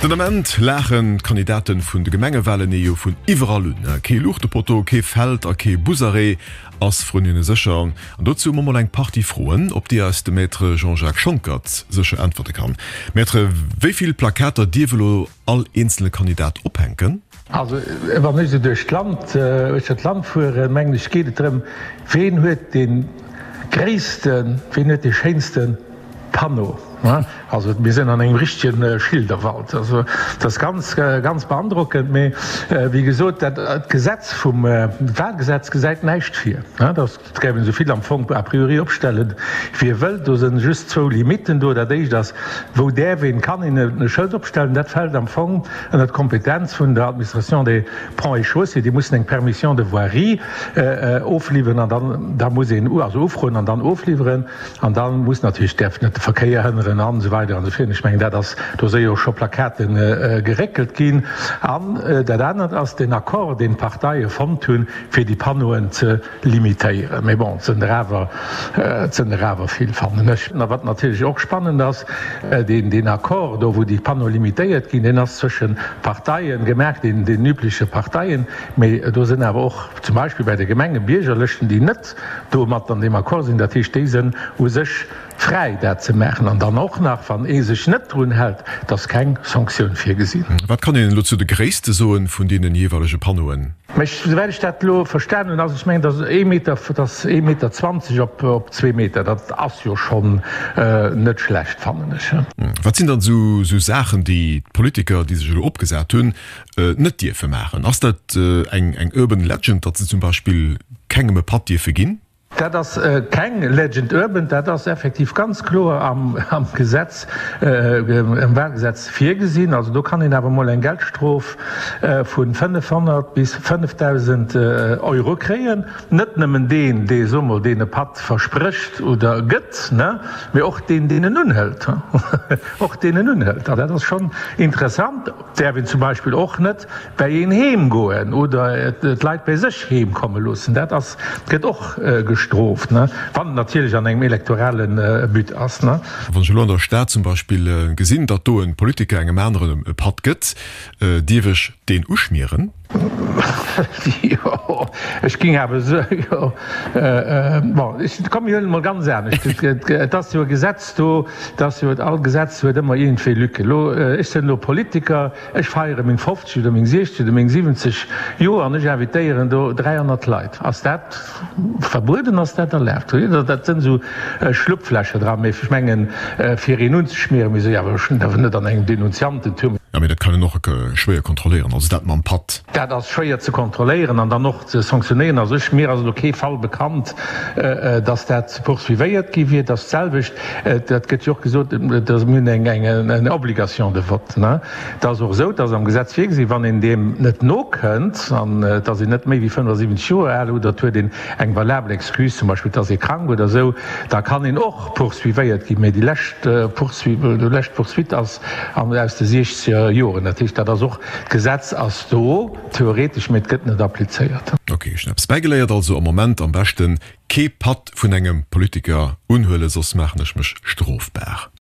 Den Ament laachen d'Kandidate vun de Gemengewalen ee jo vun iwwerall un. Kee Luuchtepotto, kee Feld a kee Busarrêt ass vrun hinne sécher. An dozou hu mer mol eng Partie Froen, op déi eis de Maître Jean-Jacques Schonckert sécher äntwerte kann. Maître, wéi vill Plakater dierf elo all eenzele Kandidat ophänken? Also wann ech esou duerch d'Land, uechter d'Land fueren, mengen ech, geet et drëm, ween huet dee gréissten, ween huet dee schéinste Panneau. Also mir sinn an engem richtege Schilderwald. Also dat ass ganz, ganz beandrockend. Mee wéi gesot, dat Gesetz vum Wahlgesetz gesäit näischt vir. Et gäif een esou vill am Fong a priori opstellen, wéi ee wëllt. Do sinn just zwou Limitten do. Dat éischt ass, Wou däerf een, kann een e Schëld opstellen? Dat fält am Fong ënner d'Kompetenz vun der Administration des Ponts et Chaussées. Déi mussen eng Permission de voirie ofliwweren an dann, da muss een, also ufroen an dann ofliwweren. An da muss natierlech, däerf net de Verkéier hënneren an esou weider an esou virun. Ech mengen, dat ass, do si jo scho Plakate geréckelt ginn. An dat anert ass den Accord, deen d'Parteie fonnt hunn, fir déi Panneauen ze limitéieren. Mee bon, et sënn der awer, et sënn der awer vill, fannen ech. A wat natierlech och spannend ass, deen, deen Accord do, wou déi Panneaue limitéiert ginn, deen ass zwëschen Parteien gemaach, deen, den übleche Parteien. Mee do sënn awer och zum Beispill bei de Gemenge Biergerlëschten, déi net do mat an deem Accord sinn. Dat heescht, déi sënn u sech fräi, dat ze maachen. An dann och nach, wann ee sech net drun hält, et ass keng Sanktioun virgesinn. Wat kann een elo zu de Gréisste soen vun deenen jeeweilege Panneauen? Mä souwäit ech dat elo verstan hunn, ass, ech mengen, datt ee Meter, dat ass ee Meter 20 op zwee Meter, dat ass jo schonn net schlecht, fannen ech. Wat sinn dann esou Saachen, déi d'Politiker, déi sech elo opgesat hunn, net dierfe maachen? Ass dat eng urban legend, datt se zum Beispill kengem e Patt dierfe ginn? Dat ass keng Legend urban, dat ass effektiv ganz kloer am Gesetz, am Wahlgesetz virgesinn. Also do kann een awer emol eng Geldstrof vu 500 bis 5.000 Euro kréien. Net nëmmen deen, dee, soe mol, deen e Patt versprécht oder gëtt, mee och deen, deen en unhëlt. Och deen en unhëlt. An dat ass schonn interessant. Däerf een zum Beispill och net bäi een heem goen oder d'Leit bäi sech heem komme loossen. Dat ass, gëtt och gestrooft, wann et natierlech an engem elektorale But ass. Wann ech elo an der Stad zum Beispill gesinn, datt do e Politiker engem aneren e Patt gëtt, dierf ech deen uschmieren? Jo, ech ging awer esou, jo, bon, ech, komm mir huelen et mol ganz anescht. Et ass jo e Gesetz do, et ass jo, all Gesetz huet ëmmer iergendwéi Lücken. Elo, ech sinn elo Politiker, ech feiere meng 50 oder meng 60 oder meng 70 Joer an ech invitéieren do 300 Leit. Ass dat verbueden, ass dat erlaabt? Dat sinn esou Schlupflächer dran, mee ech mengen, fir een unzeschmieren, mee esou, jo, awer net an engem Denunziantentum. Jo, mee dat kann een och schwéier kontrolléieren, also dat mam Patt. Dat ass schwéier ze kontrolléieren an dann och ze sanktionéieren. Also ech, mir ass elo kee Fall bekannt, dass dat poursuivéiert gi wier. Dat selwecht, dat gëtt jo och gesot, dass mir hunn eng, eng Obligation de vote, ne? Et ass och esou, dass am Gesetz virgesi, wann een deem net nokënnt an et ass een net méi wéi 75 Joer al oder et huet een eng valabel Excuse, zum Beispill et ass ee krank oder esou, da kann een och poursuivéiert ginn. Mee déi lescht Poursuite, déi lescht Poursuite ass an aus de siechzeger Joren. Dat heescht, dat ass och, d'Gesetz ass do, theoretesch, mee et gëtt net applizéiert. Ok, ech hunn eppes bäigeléiert. Also am Moment am beschten kee Patt vun engem Politiker unhuelen, soss maachen ech mech strofbar.